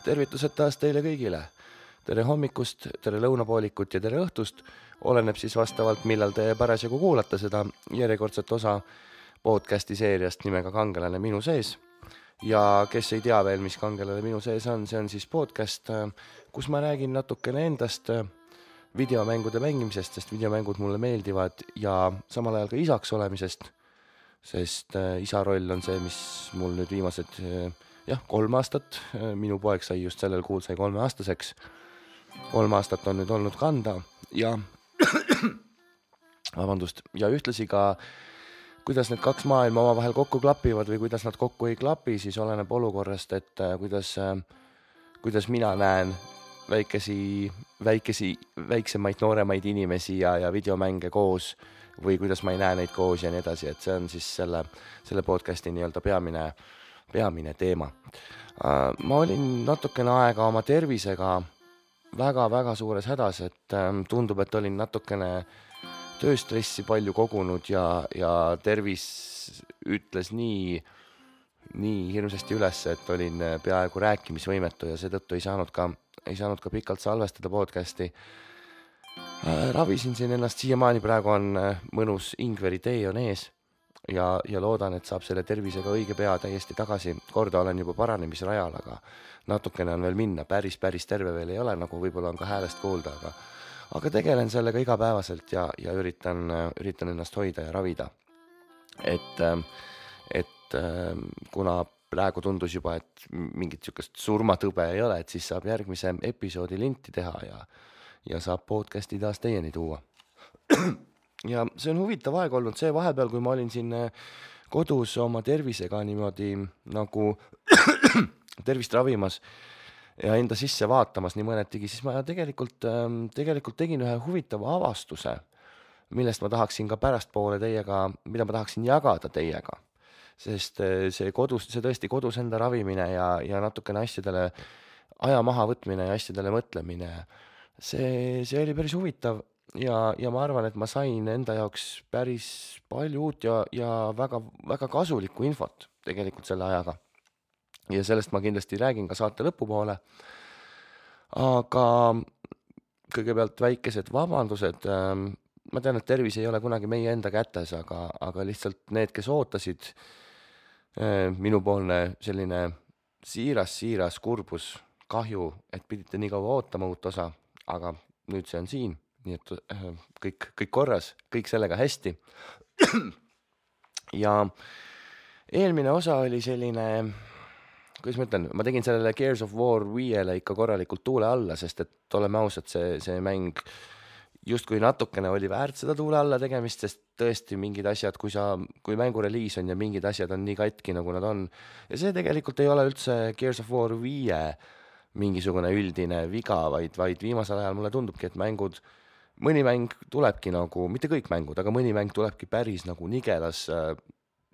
Tervitused taas teile kõigile. Tere hommikust, tere lõunapoolikut ja tere õhtust. Oleneb siis vastavalt, millal te parasjagu kuulate seda järjekordset osa podcasti seeriast nimega Kangelane minu sees. Ja kes ei tea veel, mis Kangelane minu sees on, see on siis podcast, kus ma räägin natukene endast videomängude mängimisest, sest videomängud mulle meeldivad ja samal ajal ka isaks olemisest, sest isa roll on see, mis mul nüüd viimased 3 aastat, minu poeg sai just sellel kuul sai 3-aastaseks. 3 aastat on nüüd olnud kanda ja ja ühtlasi ka, kuidas need 2 maailma omavahel kokku klapivad või kuidas nad kokku ei klapi, siis oleneb olukorrast, et kuidas mina näen väiksemaid, nooremaid inimesi ja videomänge koos või kuidas ma ei näe neid koos ja nii edasi, et see on siis selle podcasti nii-öelda peamine teema. Ma olin natukene aega oma tervisega väga suures hädas, et tundub, et olin natukene tööstressi palju kogunud ja tervis ütles nii hirmsasti üles, et olin peaaegu rääkimisvõimetu ja seetõttu ei saanud ka pikalt salvestada podcasti. Ravisin siin ennast siiamaani, praegu on mõnus Ingveri tee on ees ja loodan, et saab selle tervisega õige pea täiesti tagasi. Korda olen juba paranemisrajal, aga natukene on veel minna, päris terve veel ei ole, nagu võib-olla on ka häälest kuulda, aga tegelen sellega igapäevaselt ja üritan ennast hoida ja ravida. Et kuna praegu tundus juba, et mingit sükest surmatõbe ei ole, et siis saab järgmise episoodi linti teha ja saab podcasti taas teieni tuua. Ja see on huvitav aeg olnud see vahepeal, kui ma olin siin kodus oma tervisega niimoodi nagu tervist ravimas ja enda sisse vaatamas nii mõnetigi, siis ma tegelikult tegin ühe huvitava avastuse, millest ma tahaksin ka pärastpoole mida ma tahaksin jagada teiega. Sest see tõesti kodus enda ravimine ja natukene asjadele aja maha võtmine ja asjadele mõtlemine, see oli päris huvitav ja ma arvan, et ma sain enda jaoks päris palju uut ja väga kasulikku infot tegelikult selle ajaga. Ja sellest ma kindlasti räägin ka saate lõpupoole. Aga kõigepealt väikesed vabandused. Ma tean, et tervis ei ole kunagi meie enda kätes, aga lihtsalt need, kes ootasid, minupoolne selline siiras kurbus, kahju, et pidite nii kaua ootama uut osa, aga nüüd see on siin, nii et kõik korras, kõik sellega hästi. Ja eelmine osa oli selline, kuidas ma ütlen, ma tegin sellele Gears of War 5-le ikka korralikult tuule alla, sest et oleme ausad, see mäng justkui natukene oli väärt seda tuule alla tegemist, sest tõesti mingid asjad, kui mängu reliis on ja mingid asjad on nii katki, nagu nad on. Ja see tegelikult ei ole üldse Gears of War 5 mingisugune üldine viga, vaid viimasel ajal mulle tundubki, et mõni mäng tulebki nagu, mitte kõik mängud, aga mõni mäng tulebki päris nagu nigelas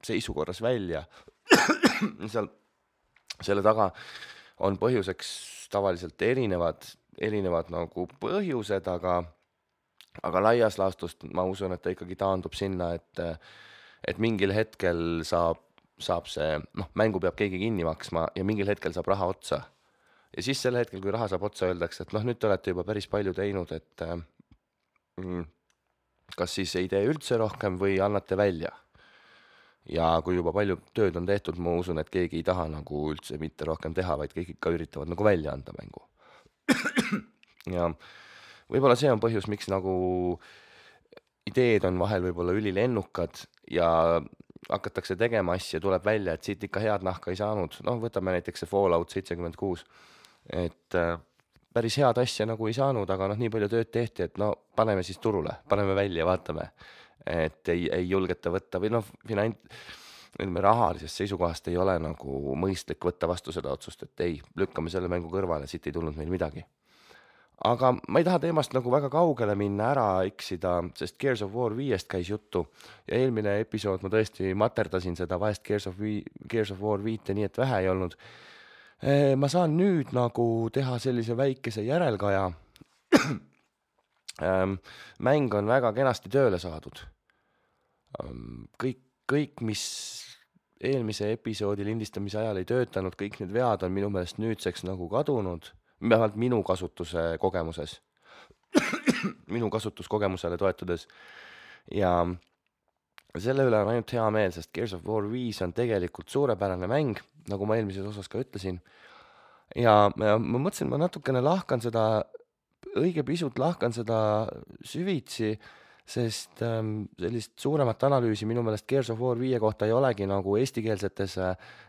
seisukorras välja. Selle taga on põhjuseks tavaliselt erinevad nagu põhjused, aga laias laastust ma usun, et ta ikkagi taandub sinna, et mingil hetkel saab see, mängu peab keegi kinni maksma ja mingil hetkel saab raha otsa. Ja siis sel hetkel, kui raha saab otsa, öeldakse, et nüüd te olete juba päris palju teinud, et kas siis ei tee üldse rohkem või annate välja. Ja kui juba palju tööd on tehtud, ma usun, et keegi ei taha nagu üldse mitte rohkem teha, vaid kõik ikka üritavad nagu välja anda mängu. Ja võib-olla see on põhjus, miks nagu ideed on vahel võib-olla ülilennukad ja hakatakse tegema asja, tuleb välja, et siit ikka head nahka ei saanud. Võtame näiteks see Fallout 76, et päris head asja nagu ei saanud, aga nii palju tööd tehti, et paneme siis turule, paneme välja, vaatame, et ei julgeta võtta või rahalisest seisukohast ei ole nagu mõistlik võtta vastu seda otsust, et ei, lükkame selle mängu kõrvale, siit ei tulnud meil midagi. Aga ma ei taha teemast nagu väga kaugele minna, ära eksida, sest Gears of War 5-st käis juttu ja eelmine episood ma tõesti materdasin seda vahest Gears of War 5 nii, et vähe ei olnud. Ma saan nüüd nagu teha sellise väikese järelkaja. Mäng on väga kenasti tööle saadud. Kõik, mis eelmise episoodi lindistamise ajal ei töötanud, kõik need vead on minu meelest nüüdseks nagu kadunud, vähemalt minu kasutuse kogemuses, minu kasutuskogemusele toetudes ja selle üle on ainult hea meel, sest Gears of War 5 on tegelikult suurepärane mäng, nagu ma eelmises osas ka ütlesin. Ja ma mõtlesin, ma natukene õige pisut lahkan seda süvitsi, sest sellist suuremat analüüsi minu meelest Gears of War 5 kohta ei olegi nagu eestikeelsetes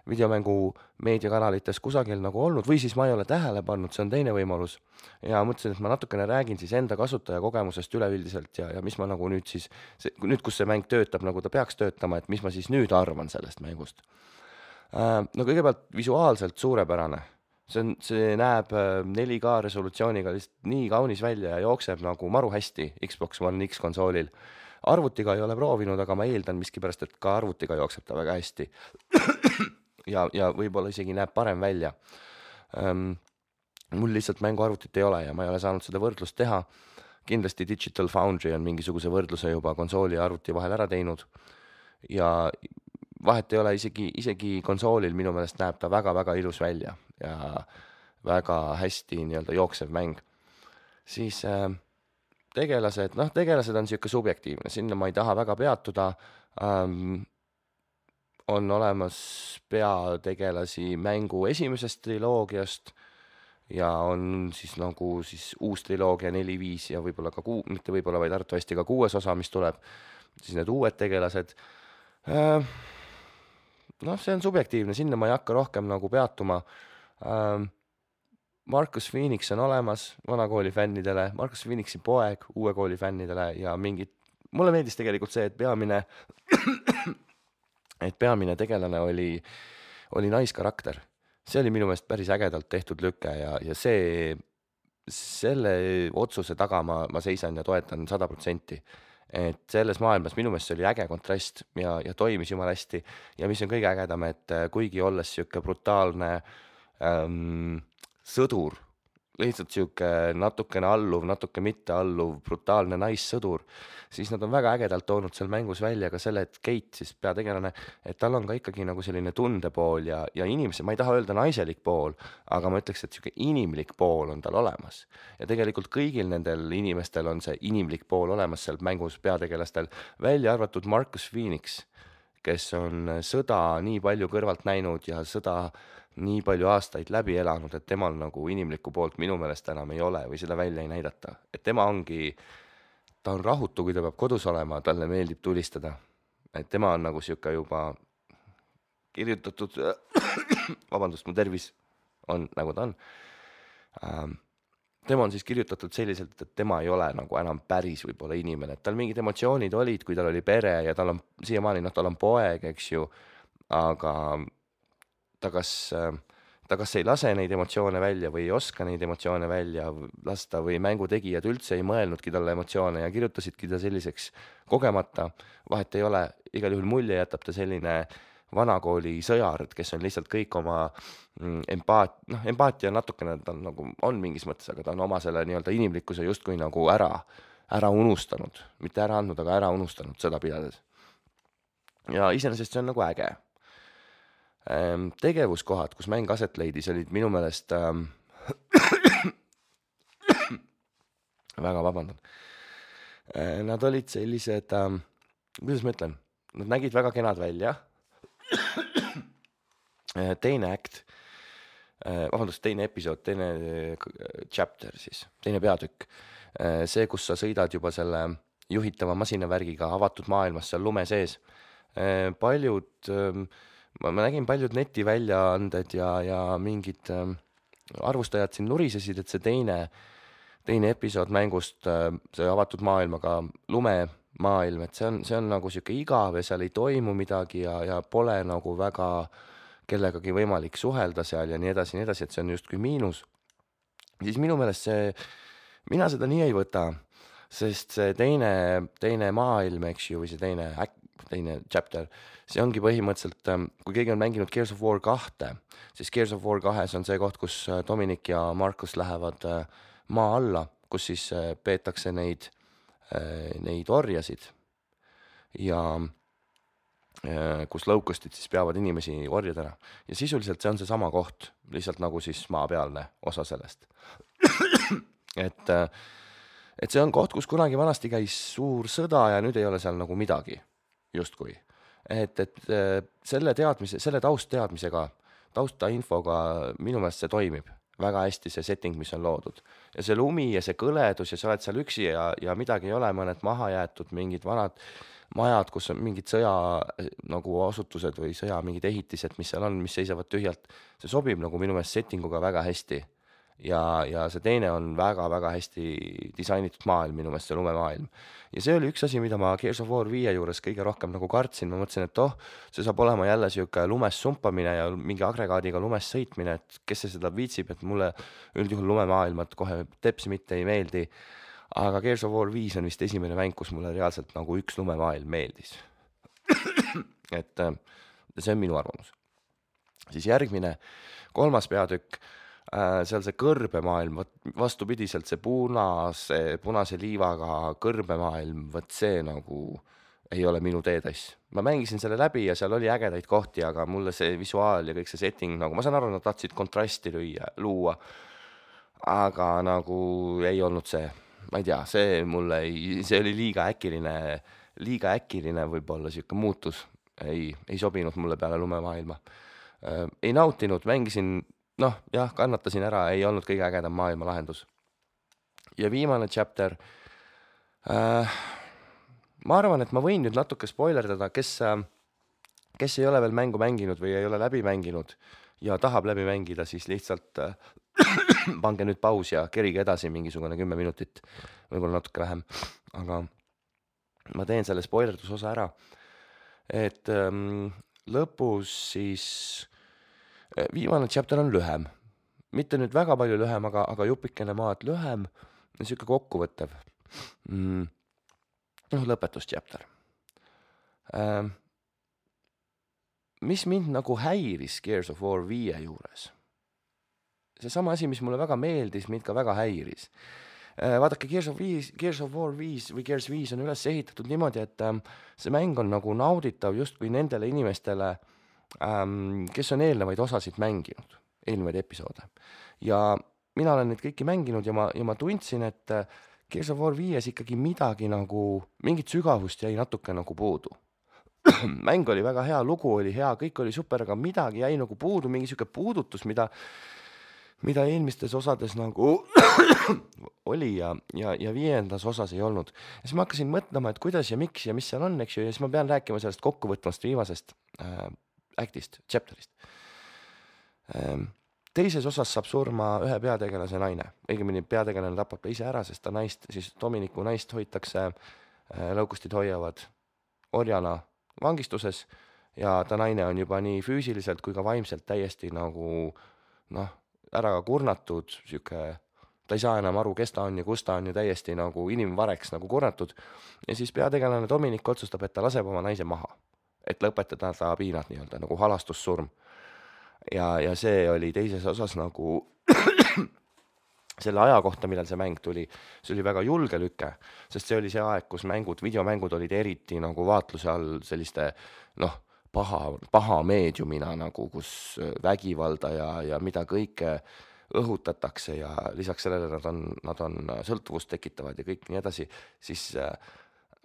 videomängu meediakanalites kusagil nagu olnud, või siis ma ei ole tähele pannud, see on teine võimalus. Ja mõtlesin, et ma natukene räägin siis enda kasutajakogemusest üleüldiselt ja mis ma nagu nüüd siis, nüüd kus see mäng töötab, nagu ta peaks töötama, et mis ma siis nüüd arvan sellest mängust. No kõigepealt visuaalselt suurepärane. See näeb 4K resolutsiooniga lihtsalt nii kaunis välja ja jookseb nagu maru hästi Xbox One X konsoolil. Arvutiga ei ole proovinud, aga ma eeldan miskipärast, et ka arvutiga jookseb ta väga hästi. ja võib-olla isegi näeb parem välja. Mul lihtsalt mänguarvutit ei ole ja ma ei ole saanud seda võrdlust teha. Kindlasti Digital Foundry on mingisuguse võrdluse juba konsooli ja arvuti vahel ära teinud. Ja vahet ei ole, isegi konsoolil minu meelest näeb ta väga-väga ilus välja ja väga hästi nii-öelda jooksev mäng. Siis tegelased on siuke subjektiivne, sinna ma ei taha väga peatuda. On olemas peategelasi mängu esimesest triloogiast ja on siis nagu siis uus triloogia 4, 5 ja võib-olla ka mitte võib-olla, vaid arvatavasti ka 6. osa, mis tuleb, siis need uued tegelased. See on subjektiivne, sinna ma ei hakka rohkem nagu peatuma. Marcus Phoenix on olemas vana kooli fännidele, Marcus Phoenixi poeg uue kooli fännidele ja mulle meeldis tegelikult see, et peamine tegelane oli naiskarakter. See oli minu meelest päris ägedalt tehtud lükke ja selle otsuse taga ma seisan ja toetan 100%. Et selles maailmas minu meelest see oli äge kontrast ja toimis jumala hästi ja mis on kõige ägedam, et kuigi olles siuke brutaalne sõdur, lihtsalt siuke natukene alluv, natuke mitte alluv, brutaalne naissõdur, siis nad on väga ägedalt toonud seal mängus välja ka selle, et Kate siis peategelane, et tal on ka ikkagi nagu selline tundepool ja inimese, ma ei taha öelda naiselik pool, aga ma ütleks, et siuke inimlik pool on tal olemas. Ja tegelikult kõigil nendel inimestel on see inimlik pool olemas seal mängus peategelastel, välja arvatud Marcus Phoenix, kes on sõda nii palju kõrvalt näinud ja sõda nii palju aastaid läbi elanud, et temal nagu inimlikku poolt minu meelest enam ei ole või seda välja ei näidata. Et ta on rahutu, kui ta peab kodus olema, talle meeldib tulistada. Et tema on nagu siuke juba kirjutatud, vabandust, mu tervis on nagu ta on. Tema on siis kirjutatud selliselt, et tema ei ole nagu enam päris võib-olla inimene. Et tal mingid emotsioonid olid, kui tal oli pere ja tal on siiamaani, tal on poeg, eks ju, aga ta kas ei lase neid emotsioone välja või ei oska neid emotsioone välja lasta või mängutegijad üldse ei mõelnudki talle emotsioone ja kirjutasidki ta selliseks kogemata. Vahet ei ole, igal juhul mulje jätab ta selline vanakooli sõjard, kes on lihtsalt kõik oma empaatia natukene, ta nagu on mingis mõttes, aga ta on oma selle nii-öelda inimlikkuse justkui nagu ära unustanud. Mitte ära andnud, aga ära unustanud seda pidades. Ja iseenesest see on nagu äge. Tegevuskohad, kus mäng aset leidis, olid minu meelest väga vabandan. Nad olid sellised, kuidas ma ütlen, nad nägid väga kenad välja. Teine episood, teine chapter siis, teine peatükk. See, kus sa sõidad juba selle juhitava masinavärgiga avatud maailmas seal lume sees. Ma nägin paljud netiväljaanded ja mingid arvustajad siin nurisesid, et see teine episood mängust, see avatud maailmaga lumemaailm, et see on nagu siuke igav ja seal ei toimu midagi ja pole nagu väga kellegagi võimalik suhelda seal ja nii edasi, et see on justkui miinus. Siis minu meelest mina seda nii ei võta, sest see teine maailm, eks ju, või see teine chapter, see ongi põhimõtteliselt, kui keegi on mänginud Gears of War 2, siis Gears of War 2 on see koht, kus Dominic ja Marcus lähevad maa alla, kus siis peetakse neid orjasid. Ja kus locustid siis peavad inimesi orjadena. Ja sisuliselt see on seesama koht, lihtsalt nagu siis maapealne osa sellest. et see on koht, kus kunagi vanasti käis suur sõda ja nüüd ei ole seal nagu midagi, justkui. Et selle taustteadmisega, taustainfoga minu meelest see toimib väga hästi, see setting, mis on loodud. Ja see lumi ja see kõledus ja sa oled seal üksi ja midagi ei ole, mõned maha jäetud, mingid vanad majad, kus on mingid sõja nagu asutused või sõja mingid ehitised, mis seal on, mis seisavad tühjalt. See sobib nagu minu meelest settinguga väga hästi. Ja see teine on väga-väga hästi disainitud maailm, minu meelest see lumemaailm. Ja see oli üks asi, mida ma Gears of War 5 juures kõige rohkem nagu kartsin. Ma mõtlesin, et see saab olema jälle siuke lumes sumpamine ja mingi agregaadiga lumes sõitmine, et kes see seda viitsib, et mulle üldjuhul lumemaailmad kohe teps mitte ei meeldi. Aga Gears of War 5 on vist esimene mäng, kus mulle reaalselt nagu üks lumemaailm meeldis. et see on minu arvamus. Siis järgmine, 3. peatükk, seal see kõrbemaailm, vastupidiselt see punase liivaga kõrbemaailm, võt see nagu ei ole minu teetass. Ma mängisin selle läbi ja seal oli ägedaid kohti, aga mulle see visuaal ja kõik see setting, nagu ma saan aru, nad tahtsid kontrasti luua, aga nagu ei olnud see. Ma ei tea, see oli liiga äkiline võib-olla siuke muutus. Ei sobinud mulle peale lumemaailma. Ei nautinud, mängisin, kannatasin ära, ei olnud kõige ägedam maailma lahendus. Ja viimane chapter. Ma arvan, et ma võin nüüd natuke spoilerdada, kes ei ole veel mängu mänginud või ei ole läbi mänginud ja tahab läbi mängida, siis lihtsalt pange nüüd paus ja kerige edasi mingisugune 10 minutit, võib-olla natuke vähem, aga ma teen selle spoilerdusosa ära. Et lõpus siis viimane chapter on lühem, mitte nüüd väga palju lühem, aga jupikene maad lühem, siuke kokkuvõttev. Lõpetus chapter. Mis mind nagu häiris Gears of War 5 juures? See sama asi, mis mulle väga meeldis, mind ka väga häiris. Vaadake, Gears of War 5 või Gears 5 on üles ehitatud niimoodi, et see mäng on nagu nauditav justkui nendele inimestele, kes on eelnevaid osasid mänginud, eelnevaid episoode. Ja mina olen neid kõiki mänginud ja ma tundsin, et Gears of War 5 ikkagi midagi nagu, mingit sügavust jäi natuke nagu puudu. Mäng oli väga hea, lugu oli hea, kõik oli super, aga midagi jäi nagu puudu, mingi siuke puudutus, mida eelmistes osades nagu oli ja 5. osas ei olnud. Ja siis ma hakkasin mõtlema, et kuidas ja miks ja mis seal on, eks ju, ja siis ma pean rääkima sellest kokkuvõtvast viimasest actist, chapterist. Teises osas saab surma ühe peategelase naine. Õigemini peategelane tapab ise ära, sest ta siis Dominiku naist hoitakse, lõukustid hoiavad orjana vangistuses ja ta naine on juba nii füüsiliselt kui ka vaimselt täiesti nagu ära kurnatud, ta ei saa enam aru, kes ta on ja kus ta on ja täiesti nagu inimvareks nagu kurnatud. Ja siis peategelane Dominik otsustab, et ta laseb oma naise maha, et lõpetada ta piinad nii-öelda nagu halastussurm. Ja see oli teises osas nagu selle aja kohta, millal see mäng tuli, see oli väga julge lüke, sest see oli see aeg, kus videomängud olid eriti nagu vaatluse all selliste paha meediumina nagu, kus vägivalda ja mida kõike õhutatakse ja lisaks sellele nad on sõltuvust tekitavad ja kõik nii edasi, siis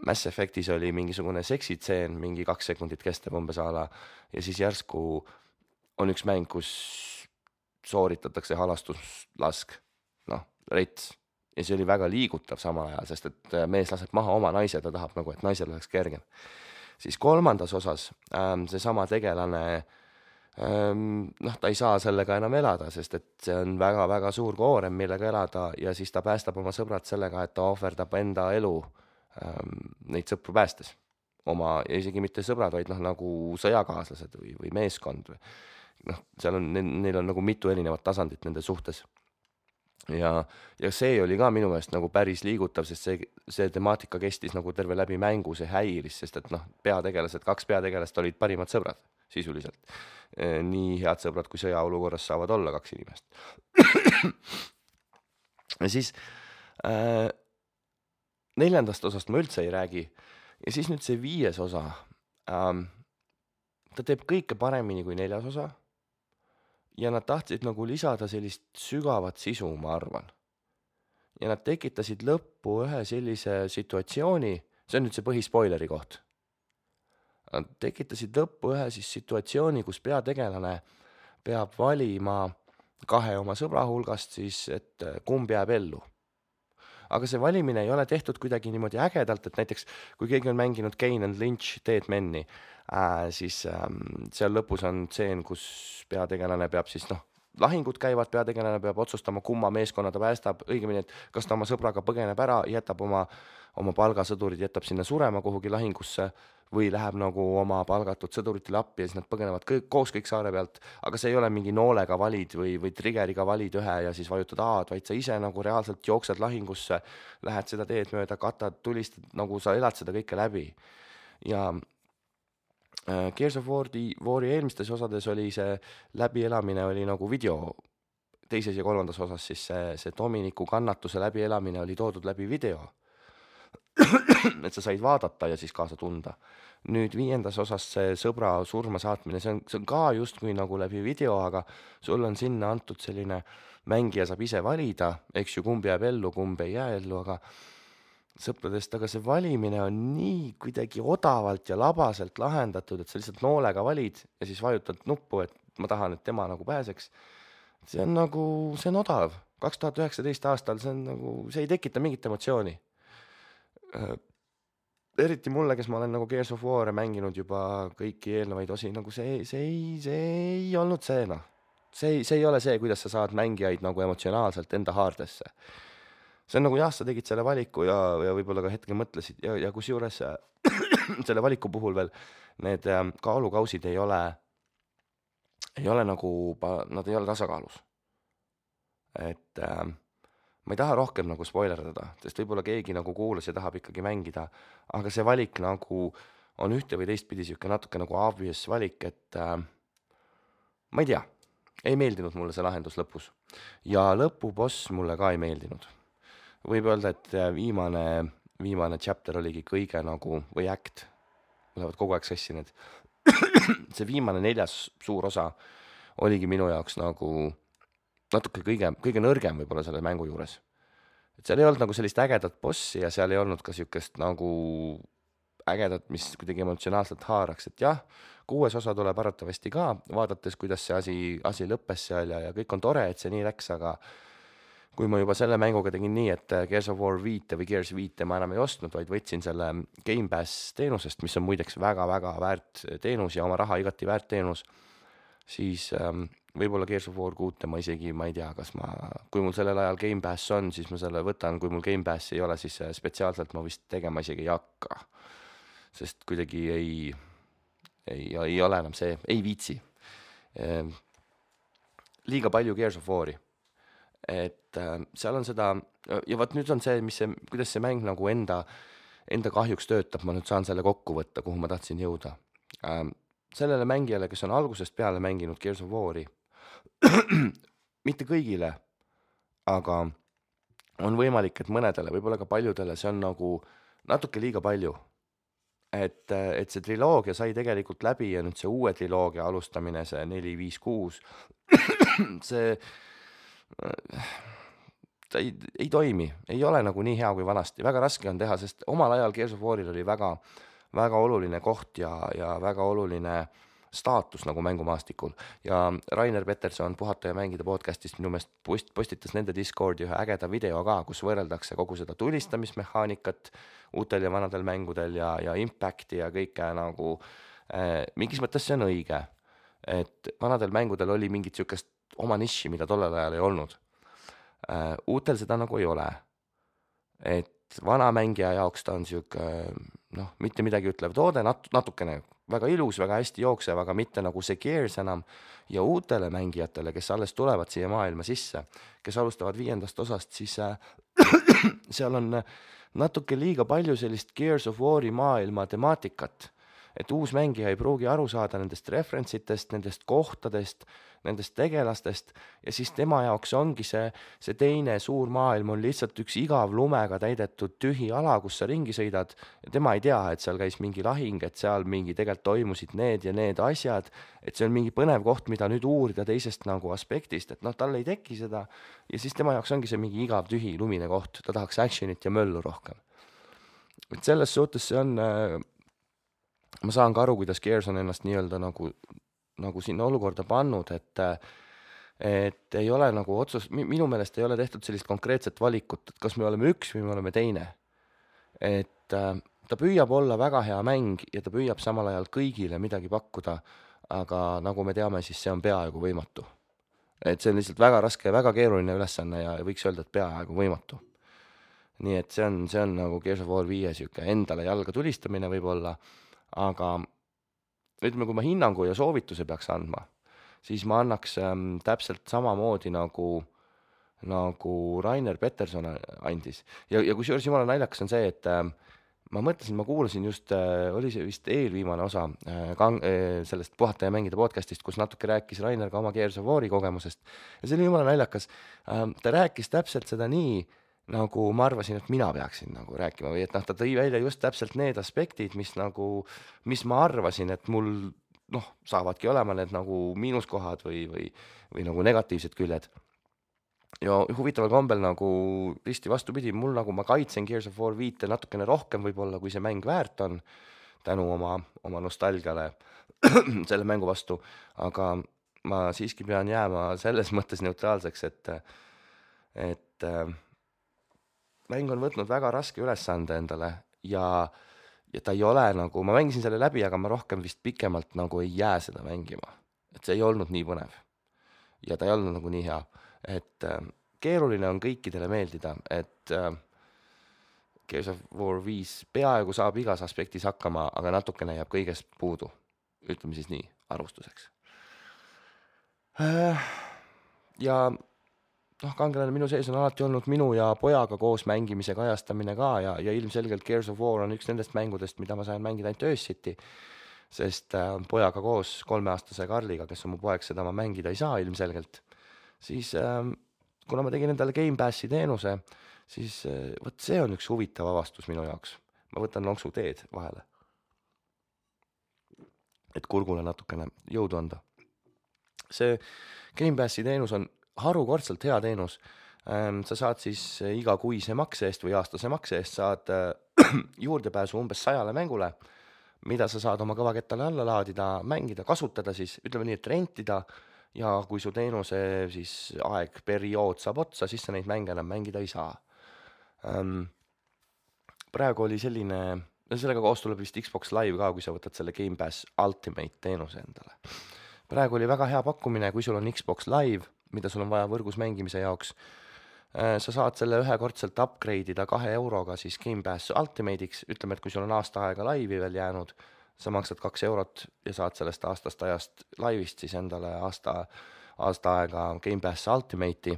Mass Effectis oli mingisugune seksitseen, mingi 2 sekundit kestab umbes ala ja siis järsku on üks mäng, kus sooritatakse halastuslask, rets. Ja see oli väga liigutav samal ajal, sest et mees laseb maha oma naise, ta tahab nagu, et naisel oleks kergem. Siis 3. osas see sama tegelane, ta ei saa sellega enam elada, sest et see on väga-väga suur koorem, millega elada ja siis ta päästab oma sõbrad sellega, et ta ohverdab enda elu neid sõpru päästes. Ja isegi mitte sõbrad, vaid nagu sõjakaaslased või meeskond. Neil on nagu mitu erinevat tasandit nende suhtes. Ja see oli ka minu meelest nagu päris liigutav, sest see temaatika kestis nagu terve läbi mängu, see häiris, sest et 2 peategelast olid parimad sõbrad sisuliselt. Nii head sõbrad, kui sõjaolukorras saavad olla 2 inimest. Ja siis 4. osast ma üldse ei räägi. Ja siis nüüd see 5. osa. ta teeb kõike paremini kui 4. osa ja nad tahtsid nagu lisada sellist sügavat sisu, ma arvan. Ja nad tekitasid lõppu ühe sellise situatsiooni, see on nüüd see põhispoileri koht. Nad tekitasid lõppu ühe siis situatsiooni, kus peategelane peab valima 2 oma sõbra hulgast siis, et kumb jääb ellu. Aga see valimine ei ole tehtud kuidagi niimoodi ägedalt, et näiteks kui keegi on mänginud Kane and Lynch Dead Men'i, siis seal lõpus on tseen, kus peategelane peab siis lahingud käivad, peategelane peab otsustama, kumma meeskonna ta päästab, õigemini, et kas ta oma sõbraga põgeneb ära, jätab oma palgasõdurid, jätab sinna surema kuhugi lahingusse või läheb nagu oma palgatud sõduritele appi ja siis nad põgenevad koos kõik saare pealt, aga see ei ole mingi noolega valid või triggeriga valid ühe ja siis vajutad A-d, vaid sa ise nagu reaalselt jooksed lahingusse, lähed seda teed mööda, katad, tulistad, nagu sa elad seda kõike läbi. Ja Gears of War'i eelmistes osades oli see läbielamine oli nagu video, 2. ja 3. osas siis see Dominiku kannatuse läbielamine oli toodud läbi video. Et sa said vaadata ja siis kaasa tunda. Nüüd 5. osas see sõbra surma saatmine, see on ka justkui nagu läbi video, aga sul on sinna antud selline, mängija saab ise valida, eks ju, kumb jääb ellu, kumb ei jää ellu, aga sõpradest, aga see valimine on nii kuidagi odavalt ja labaselt lahendatud, et sa lihtsalt noolega valid ja siis vajutad nuppu, et ma tahan, et tema nagu pääseks. See on odav. 2019 aastal see ei tekita mingit emotsiooni. Eriti mulle, kes ma olen nagu Gears of War'e mänginud juba kõiki eelnevaid osi, nagu see ei olnud see, See ei ole see, kuidas sa saad mängijaid nagu emotsionaalselt enda haardesse. See on nagu jah, sa tegid selle valiku ja võib-olla ka hetkel mõtlesid ja kus juures selle valiku puhul veel need kaalukausid ei ole nagu, nad ei ole tasakaalus. Et ma ei taha rohkem nagu spoilerdada, sest võib-olla keegi nagu kuulas ja tahab ikkagi mängida, aga see valik nagu on ühte või teistpidi siuke natuke nagu obvious valik, et ma ei tea, ei meeldinud mulle see lahendus lõpus. Ja lõpuboss mulle ka ei meeldinud. Võib öelda, et viimane chapter oligi kõige nagu, või act, lähevad kogu aeg sassi need. See viimane 4. suur osa oligi minu jaoks nagu natuke kõige nõrgem võib-olla selle mängu juures. Et seal ei olnud nagu sellist ägedat bossi ja seal ei olnud ka siukest nagu ägedat, mis kuidagi emotsionaalselt haaraks, et jah, 6. osa tuleb arvatavasti ka, vaadates, kuidas see asi lõppes seal ja kõik on tore, et see nii läks, aga kui ma juba selle mänguga tegin nii, et Gears of War 5 või Gears 5 ma enam ei ostnud, vaid võtsin selle Game Pass teenusest, mis on muideks väga-väga väärt teenus ja oma raha igati väärt teenus, siis võib-olla Gears of War 6 ma isegi, ma ei tea, kui mul sellel ajal Game Pass on, siis ma selle võtan, kui mul Game Pass ei ole, siis spetsiaalselt ma vist tegema isegi ei hakka. Sest kuidagi ei ole enam see, ei viitsi. Liiga palju Gears of War'i. Et seal on seda, ja vaat nüüd on see, kuidas see mäng nagu enda kahjuks töötab, ma nüüd saan selle kokku võtta, kuhu ma tahtsin jõuda. Sellele mängijale, kes on algusest peale mänginud Gears of War'i, mitte kõigile, aga on võimalik, et mõnedele, võib-olla ka paljudele, see on nagu natuke liiga palju. Et see triloogia sai tegelikult läbi ja nüüd see uue triloogia alustamine, see 4, 5, 6, ta ei toimi, ei ole nagu nii hea kui vanasti, väga raske on teha, sest omal ajal Gears of War'il oli väga, väga oluline koht ja väga oluline staatus nagu mängumaastikul ja Rainer Peterson Puhata ja mängida podcastist minu meelest postitas nende Discordi ühe ägeda video ka, kus võrreldakse kogu seda tulistamismehaanikat uutel ja vanadel mängudel ja impacti ja kõike nagu mingis mõttes see on õige, et vanadel mängudel oli mingit siukest oma niši, mida tollel ajal ei olnud. Uutel seda nagu ei ole, et vana mängija jaoks ta on siuke mitte midagi ütlev toode, natukene väga ilus, väga hästi jooksev, aga mitte nagu see Gears enam ja uutele mängijatele, kes alles tulevad siia maailma sisse, kes alustavad 5. osast, siis seal on natuke liiga palju sellist Gears of War'i maailma temaatikat, et uus mängija ei pruugi aru saada nendest referentsitest, nendest kohtadest, nendest tegelastest ja siis tema jaoks ongi see teine suur maailm on lihtsalt üks igav lumega täidetud tühi ala, kus sa ringi sõidad ja tema ei tea, et seal käis mingi lahing, et seal mingi tegelikult toimusid need ja need asjad, et see on mingi põnev koht, mida nüüd uurida teisest nagu aspektist, et noh, tal ei teki seda ja siis tema jaoks ongi see mingi igav tühi lumine koht, ta tahaks actionit ja möllu rohkem. Et selles suhtes see on, ma saan ka aru, kuidas Gears on ennast nii-öelda nagu sinna olukorda pannud, et ei ole nagu minu meelest ei ole tehtud sellist konkreetset valikut, et kas me oleme üks või me oleme teine. Et ta püüab olla väga hea mäng ja ta püüab samal ajal kõigile midagi pakkuda, aga nagu me teame, siis see on peaaegu võimatu. Et see on lihtsalt väga raske ja väga keeruline ülesanne ja võiks öelda, et peaaegu võimatu. Nii et see on nagu Gears of War 5 siuke endale jalga tulistamine võib-olla, aga ütleme, kui ma hinnangu ja soovituse peaks andma, siis ma annaks täpselt samamoodi nagu Rainer Peterson andis. Ja kusjuures jumala naljakas on see, et ma mõtlesin, ma kuulasin just, oli see vist eelviimane osa sellest Puhata ja mängida podcastist, kus natuke rääkis Rainer ka oma Gears of War'i kogemusest. Ja see oli jumala naljakas. Ta rääkis täpselt seda nii, nagu ma arvasin, et mina peaksin nagu rääkima või et ta tõi välja just täpselt need aspektid, mis ma arvasin, et mul saavadki olema need nagu miinuskohad või nagu negatiivsed küljed. Ja huvitaval kombel nagu risti vastupidi, mul nagu ma kaitsen Gears of War 5 natukene rohkem võib-olla, kui see mäng väärt on, tänu oma nostalgiale selle mängu vastu, aga ma siiski pean jääma selles mõttes neutraalseks, et mäng on võtnud väga raske ülesande endale ja ta ei ole nagu, ma mängisin selle läbi, aga ma rohkem vist pikemalt nagu ei jää seda mängima. Et see ei olnud nii põnev. Ja ta ei olnud nagu nii hea. Et keeruline on kõikidele meeldida, et Gears of War 5 peaaegu saab igas aspektis hakkama, aga natukene jääb kõigest puudu. Ütleme siis nii, arvustuseks. Ja kangelane minu sees on alati olnud minu ja pojaga koos mängimise kajastamine ka ja ilmselgelt Gears of War on üks nendest mängudest, mida ma sain mängida ainult öösiti, sest pojaga koos 3-aastase Karliga, kes on mu poeg, seda ma mängida ei saa ilmselgelt. Siis kuna ma tegin endale Game Passi teenuse, siis võt see on üks huvitav avastus minu jaoks. Ma võtan lonksu teed vahele, et kurgule natukene jõudu anda. See Game Passi teenus on harukordselt hea teenus. Sa saad siis iga kuise makse eest või aastase makse eest saad juurdepääsu umbes 100 mängule, mida sa saad oma kõvakettale alla laadida, mängida, kasutada siis, ütleme nii, et rentida ja kui su teenuse siis periood saab otsa, siis sa neid mänge enam mängida ei saa. Praegu oli selline, sellega koos tuleb vist Xbox Live ka, kui sa võtad selle Game Pass Ultimate teenuse endale. Praegu oli väga hea pakkumine, kui sul on Xbox Live, mida sul on vaja võrgus mängimise jaoks. Sa saad selle ühekordselt upgrade'ida 2 euroga siis Game Pass Ultimate'iks, ütleme, et kui sul on aasta aega laivi veel jäänud, sa maksad 2 eurot ja saad sellest aastast ajast laivist siis endale aasta aega Game Pass Ultimate'i.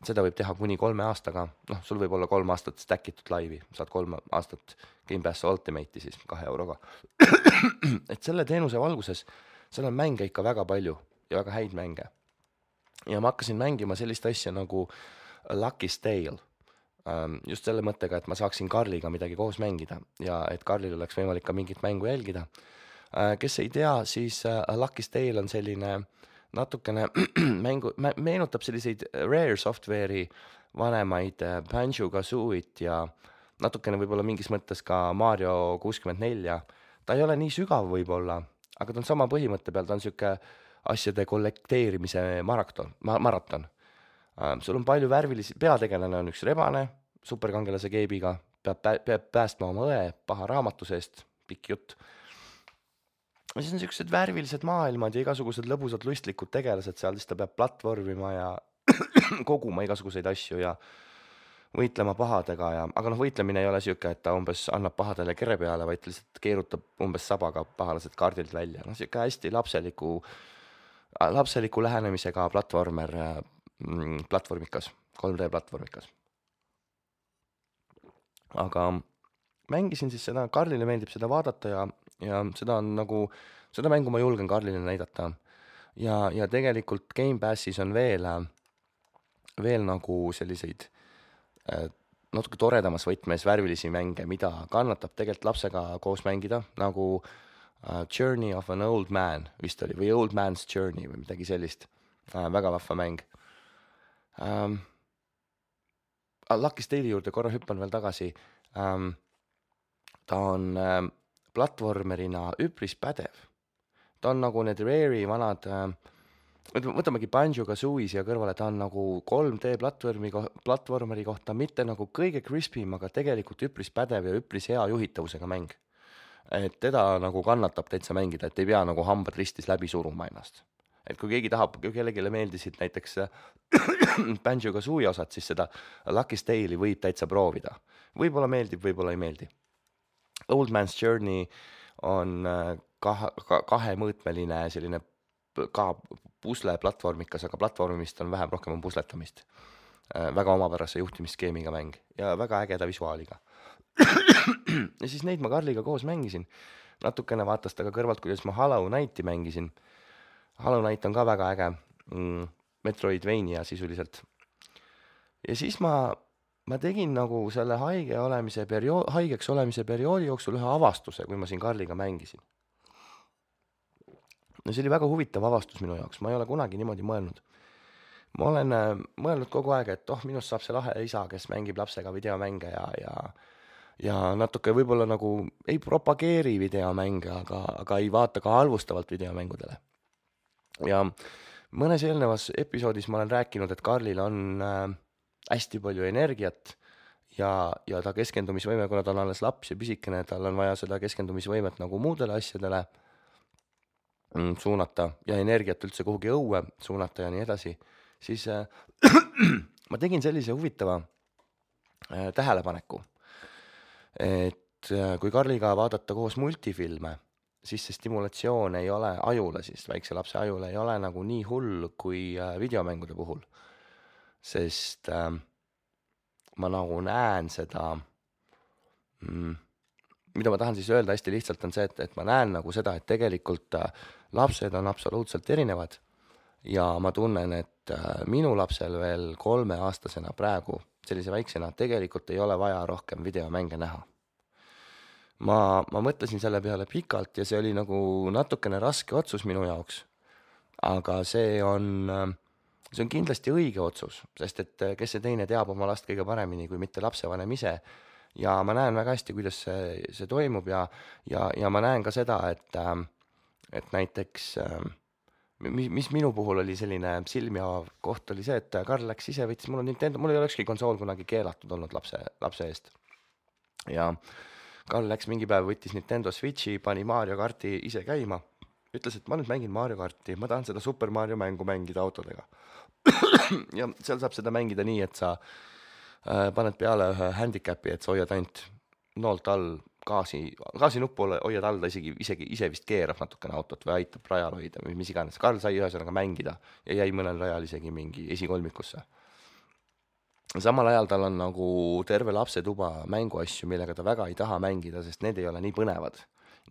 Seda võib teha kuni 3 aastaga, sul võib olla 3 aastat stackitud laivi, saad 3 aastat Game Pass Ultimate'i siis 2 euroga. Et selle teenuse valguses, seal on mänge ikka väga palju ja väga häid mänge. Ja ma hakkasin mängima sellist asja nagu Lucky's Tale. Just selle mõttega, et ma saaksin Karliga midagi koos mängida ja et Karlil oleks võimalik ka mingit mängu jälgida. Kes ei tea, siis Lucky's Tale on selline natukene meenutab selliseid Rare Software'i vanemaid Banjo-Kazooit ja natukene võib-olla mingis mõttes ka Mario 64. Ta ei ole nii sügav võib-olla, aga ta on sama põhimõtte peal, ta on siuke asjade kollekteerimise maraton. Sul on palju värvilisi, peategelane on üks rebane, superkangelase keebiga, peab päästma oma õe paha raamatu seest, pikk jutt. Ja siis on siuksed värvilised maailmad ja igasugused lõbusad lustlikud tegelased seal, siis ta peab platvormima ja koguma igasuguseid asju ja võitlema pahadega aga võitlemine ei ole siuke, et ta umbes annab pahadele kere peale, vaid lihtsalt keerutab umbes sabaga pahalased kaardilt välja. Siuke hästi lapseliku lähenemisega platvormikas, 3D platvormikas. Aga mängisin siis seda, Karlile meeldib seda vaadata ja ja seda mängu ma julgen Karlile näidata. Ja tegelikult Gamepassis on veel nagu selliseid natuke toredamas võtmes värvilisi mänge, mida kannatab tegelikult lapsega koos mängida, nagu Journey of an Old Man vist oli, või Old Man's Journey või midagi sellist. Väga vahva mäng. Lucky Tale'i juurde korra hüppan veel tagasi. Ta on platvormerina üpris pädev. Ta on nagu need Rare'i vanad, võtamegi Banjo-Kazooie siia kõrvale, ta on nagu 3D platvormeri kohta mitte nagu kõige crispim, aga tegelikult üpris pädev ja üpris hea juhitavusega mäng. Et teda nagu kannatab täitsa mängida, et ei pea nagu hambad ristis läbi suruma ennast. Et kui keegi tahab, kui kellelegi meeldisid näiteks Banjo-Kazooie osad, siis seda Lucky Tale'i võib täitsa proovida. Võib-olla meeldib, võib-olla ei meeldi. Old Man's Journey on kahemõõtmeline selline ka pusle platvormikas, aga platvormimist on vähem, rohkem on pusletamist. Väga omapärase juhtimisskeemiga mäng ja väga ägeda visuaaliga. Ja siis neid ma Karliga koos mängisin. Natukene vaatas ta ka kõrvalt, kuidas ma Hollow Knighti mängisin. Hollow Knight on ka väga äge. Metroidvania sisuliselt. Ja siis ma tegin nagu selle haigeks olemise perioodi jooksul ühe avastuse, kui ma siin Karliga mängisin. No see oli väga huvitav avastus minu jaoks, ma ei ole kunagi niimoodi mõelnud. Ma olen mõelnud kogu aeg, et minust saab see lahe isa, kes mängib lapsega videomänge ja natuke võib-olla nagu ei propageeri videomänge, aga ei vaata ka halvustavalt videomängudele. Ja mõnes eelnevas episoodis ma olen rääkinud, et Karlil on hästi palju energiat ja ta keskendumisvõime, kuna ta on alles laps ja pisikene, tal on vaja seda keskendumisvõimet nagu muudele asjadele suunata ja energiat üldse kuhugi õue suunata ja nii edasi, siis ma tegin sellise huvitava tähelepaneku, et kui Karliga vaadata koos multifilme, siis see stimulatsioon ei ole ajule, siis väikse lapse ajule ei ole nagu nii hull kui videomängude puhul, sest ma nagu näen seda, mida ma tahan siis öelda hästi lihtsalt on see, et ma näen nagu seda, et tegelikult lapsed on absoluutselt erinevad ja ma tunnen, et minu lapsel veel 3-aastasena praegu, sellise väiksena, tegelikult ei ole vaja rohkem videomänge näha. Ma mõtlesin selle peale pikalt ja see oli nagu natukene raske otsus minu jaoks, aga see on kindlasti õige otsus, sest et kes see teine teab oma last kõige paremini kui mitte lapsevanem ise. Ja ma näen väga hästi, kuidas see toimub ja ma näen ka seda, et näiteks, mis minu puhul oli selline silmi avav koht oli see, et Karl läks ise, võttis mul ei olekski konsool kunagi keelatud olnud lapse eest. Ja Karl läks mingi päev, võttis Nintendo Switchi, pani Mario Karti ise käima, ütles, et ma nüüd mängin Mario Karti, ma tahan seda Super Mario mängu mängida autodega. Ja seal saab seda mängida nii, et sa paned peale ühe handicapi, et sa hoiad ainult noolt all gaasi nuppu hoiad all, ta isegi ise vist keerab natukene autot või aitab rajal hoida või mis iganes. Karl sai ühesõnaga mängida ja jäi mõnel rajal isegi mingi esikolmikusse. Samal ajal tal on nagu terve lapsetuba mänguasju, millega ta väga ei taha mängida, sest need ei ole nii põnevad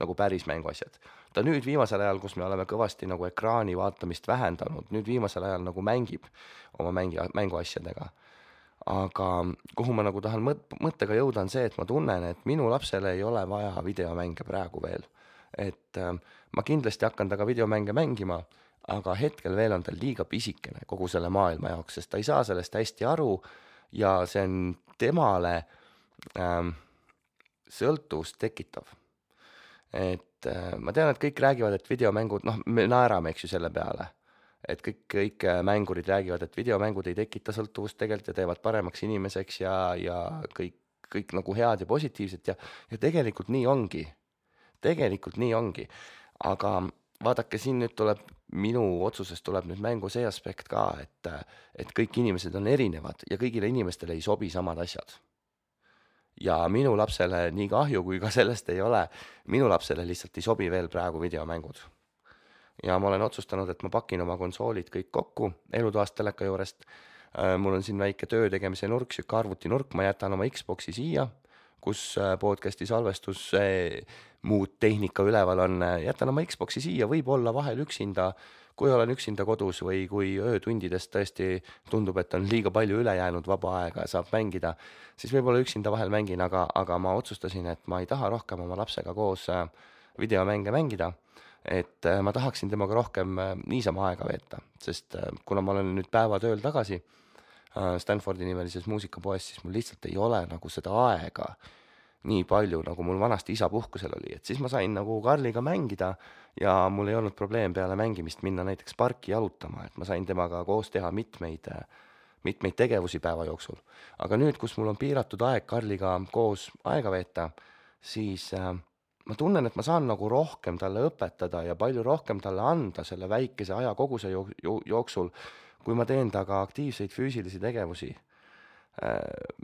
nagu päris mänguasjad. Ta nüüd viimasel ajal, kus me oleme kõvasti nagu ekraani vaatamist vähendanud, nüüd viimasel ajal nagu mängib oma mänguasjadega. Aga kuhu ma nagu tahan mõttega jõuda on see, et ma tunnen, et minu lapsele ei ole vaja videomänge praegu veel. Et ma kindlasti hakkan taga videomänge mängima, aga hetkel veel on tal liiga pisikene kogu selle maailma jaoks, sest ta ei saa sellest hästi aru ja see on temale sõltuvust tekitav. Et ma tean, et kõik räägivad, et videomängud, me naerame, eks ju, selle peale. Et kõik mängurid räägivad, et videomängud ei tekita sõltuvust tegelikult ja teevad paremaks inimeseks ja kõik nagu head ja positiivset ja tegelikult nii ongi. Tegelikult nii ongi. Aga vaadake, siin nüüd tuleb, minu otsusest tuleb nüüd mängu see aspekt ka, et kõik inimesed on erinevad ja kõigile inimestele ei sobi samad asjad. Ja minu lapsele nii kahju, kui ka sellest ei ole, minu lapsele lihtsalt ei sobi veel praegu videomängud. Ja ma olen otsustanud, et ma pakin oma konsoolid kõik kokku elutoast teleka juurest. Mul on siin väike töö tegemise nurk, siuke arvutinurk, ma jätan oma Xboxi siia, kus podcasti salvestus muud tehnika üleval on, jätan oma Xbox'i siia, võib-olla vahel üksinda, kui olen üksinda kodus või kui öötundidest tõesti tundub, et on liiga palju üle jäänud vaba aega ja saab mängida, siis võib-olla üksinda vahel mängin, aga ma otsustasin, et ma ei taha rohkem oma lapsega koos videomänge mängida, et ma tahaksin temaga rohkem niisama aega veeta, sest kuna ma olen nüüd päevatööl tagasi Stanfordi nimelises muusikapoes, siis mul lihtsalt ei ole nagu seda aega nii palju, nagu mul vanasti isa puhkusel oli, et siis ma sain nagu Karliga mängida ja mul ei olnud probleem peale mängimist minna näiteks parki jalutama, et ma sain temaga koos teha mitmeid tegevusi päeva jooksul. Aga nüüd, kus mul on piiratud aeg Karliga koos aega veeta, siis ma tunnen, et ma saan nagu rohkem talle õpetada ja palju rohkem talle anda selle väikese ajakoguse jooksul, kui ma teen taga aktiivseid füüsilisi tegevusi.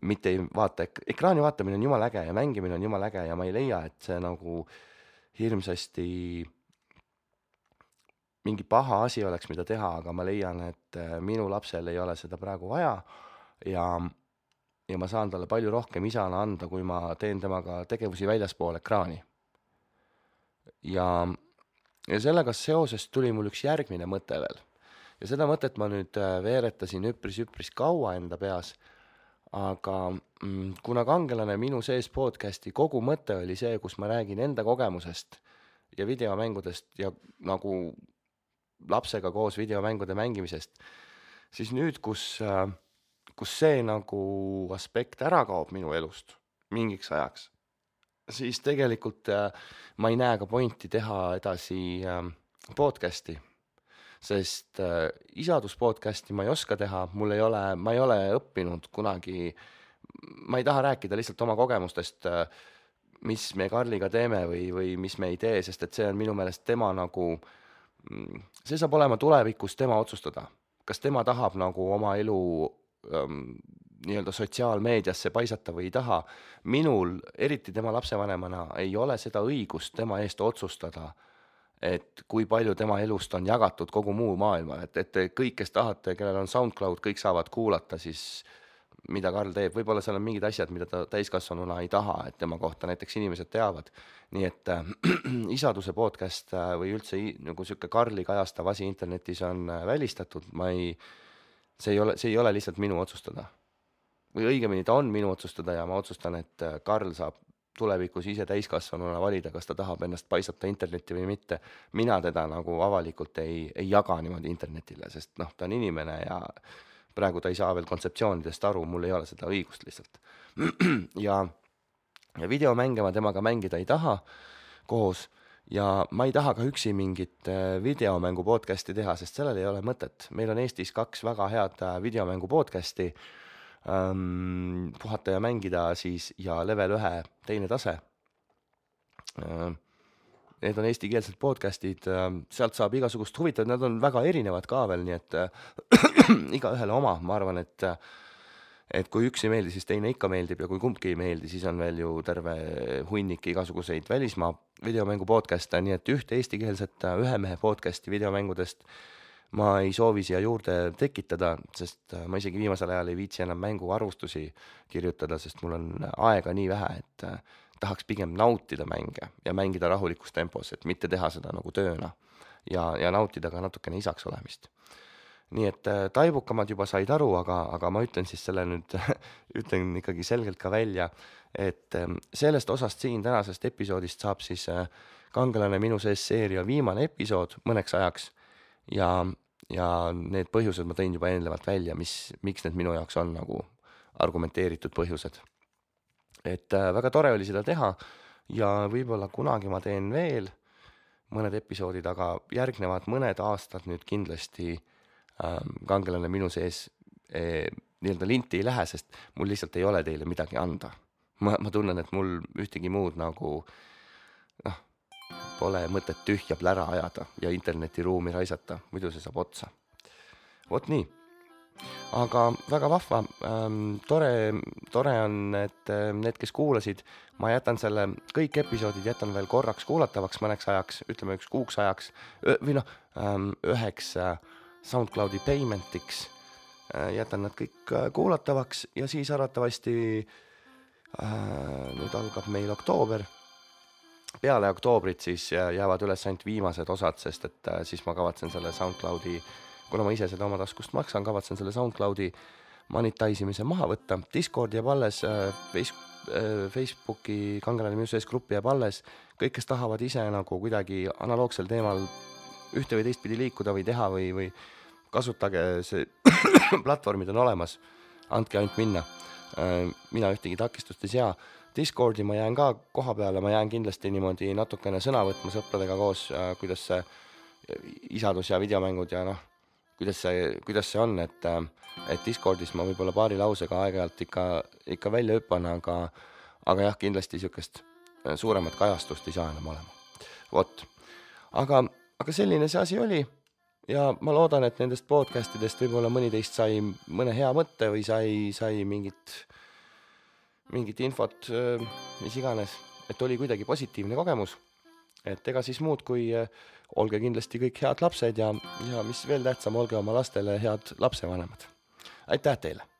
Mitte ei vaata, ekraani vaatamine on jumala äge ja mängimine on jumala äge ja ma ei leia, et see nagu hirmsasti mingi paha asi oleks, mida teha, aga ma leian, et minu lapsel ei ole seda praegu vaja ja ma saan talle palju rohkem isana anda, kui ma teen temaga tegevusi väljaspool ekraani. Ja sellega seoses tuli mul üks järgmine mõte veel. Ja seda mõtet ma nüüd veeretasin üpris kaua enda peas, aga kuna Kangelane minu sees podcasti kogu mõte oli see, kus ma räägin enda kogemusest ja videomängudest ja nagu lapsega koos videomängude mängimisest, siis nüüd, kus see nagu aspekt ära kaob minu elust mingiks ajaks, siis tegelikult ma ei näe ka pointi teha edasi podcasti, sest isaduspodcasti ma ei oska teha, ma ei ole õppinud kunagi, ma ei taha rääkida lihtsalt oma kogemustest, mis me Karliga teeme või mis me ei tee, sest et see on minu meelest tema nagu, see saab olema tulevikus tema otsustada, kas tema tahab nagu oma elu nii-öelda sotsiaalmeediasse paisata või ei taha. Minul, eriti tema lapsevanemana, ei ole seda õigust tema eest otsustada, et kui palju tema elust on jagatud kogu muu maailma, et kõik, kes tahate, kellel on SoundCloud, kõik saavad kuulata siis, mida Karl teeb. Võib-olla seal on mingid asjad, mida ta täiskasvanuna ei taha, et tema kohta näiteks inimesed teavad. Nii et isaduse podcast või üldse nagu siuke Karli kajastav asi internetis on välistatud. See ei ole lihtsalt minu otsustada. Või õigemini ta on minu otsustada ja ma otsustan, et Karl saab tulevikus ise täiskasvanuna valida, kas ta tahab ennast paisata internetti või mitte. Mina teda nagu avalikult ei jaga niimoodi internetile, sest ta on inimene ja praegu ta ei saa veel kontseptsioonidest aru, mul ei ole seda õigust lihtsalt. ja videomänge ma temaga mängida ei taha koos ja ma ei taha ka üksi mingit videomängu podcasti teha, sest sellel ei ole mõtet. Meil on Eestis 2 väga head videomängu podcasti, Puhata ja mängida siis ja Level 1 teine tase. Need on eestikeelsed podcastid, sealt saab igasugust huvitavat, nad on väga erinevad ka veel, nii et igaühele oma. Ma arvan, et kui üks ei meeldi, siis teine ikka meeldib ja kui kumbki ei meeldi, siis on veel ju terve hunnik igasuguseid välismaa videomängu podcast'e, nii et ühte eestikeelset ühe mehe podcast'i videomängudest ma ei soovi siia juurde tekitada, sest ma isegi viimasel ajal ei viitsi enam mänguarvustusi kirjutada, sest mul on aega nii vähe, et tahaks pigem nautida mänge ja mängida rahulikus tempos, et mitte teha seda nagu tööna ja nautida ka natukene isaks olemist. Nii et taibukamad juba said aru, aga ma ütlen siis selle nüüd, ütlen ikkagi selgelt ka välja, et sellest osast siin tänasest episoodist saab siis Kangelane minu sees seeria viimane episood mõneks ajaks ja need põhjused ma tõin juba eelnevalt välja, miks need minu jaoks on nagu argumenteeritud põhjused. Et väga tore oli seda teha ja võib-olla kunagi ma teen veel mõned episoodid, aga järgnevad mõned aastad nüüd kindlasti Kangelane minu sees nii-öelda linti ei lähe, sest mul lihtsalt ei ole teile midagi anda. Ma tunnen, et mul ühtegi muud nagu pole mõtet tühja plära ajada ja internetiruumi raisata, muidu see saab otsa. Vot nii. Aga väga vahva, tore on, et need, kes kuulasid, ma jätan selle, kõik episoodid jätan veel korraks kuulatavaks mõneks ajaks, ütleme 1 kuuks ajaks, või üheks SoundCloudi paymentiks, jätan nad kõik kuulatavaks ja siis arvatavasti nüüd algab meil oktoober, peale oktoobrit siis jäävad üles ainult viimased osad, sest et siis ma kavatsen selle SoundCloudi, kuna ma ise seda oma taskust maksan, kavatsen selle SoundCloudi monetise'imise maha võtta. Discord jääb alles, Facebooki Kangelane Muses gruppi jääb alles. Kõik, kes tahavad ise nagu kuidagi analoogsel teemal ühte või teistpidi liikuda või teha või kasutage see platvormid on olemas, andke ainult minna. Mina ühtegi takistust ei sea. Discordi ma jään ka koha peale, ma jään kindlasti niimoodi natukene sõna võtma sõpradega koos, kuidas see isadus ja videomängud ja kuidas see on, et Discordis ma võib-olla paari lausega aeg-ajalt ikka välja hüppan, aga jah, kindlasti niisugust suuremat kajastust ei saa enam olema. Vot. Aga selline see asi oli ja ma loodan, et nendest podcastidest võib-olla mõni teist sai mõne hea mõtte või sai mingit infot, mis iganes, et oli kuidagi positiivne kogemus. Et ega siis muud kui olge kindlasti kõik head lapsed ja mis veel tähtsam, olge oma lastele head lapsevanemad. Aitäh teile!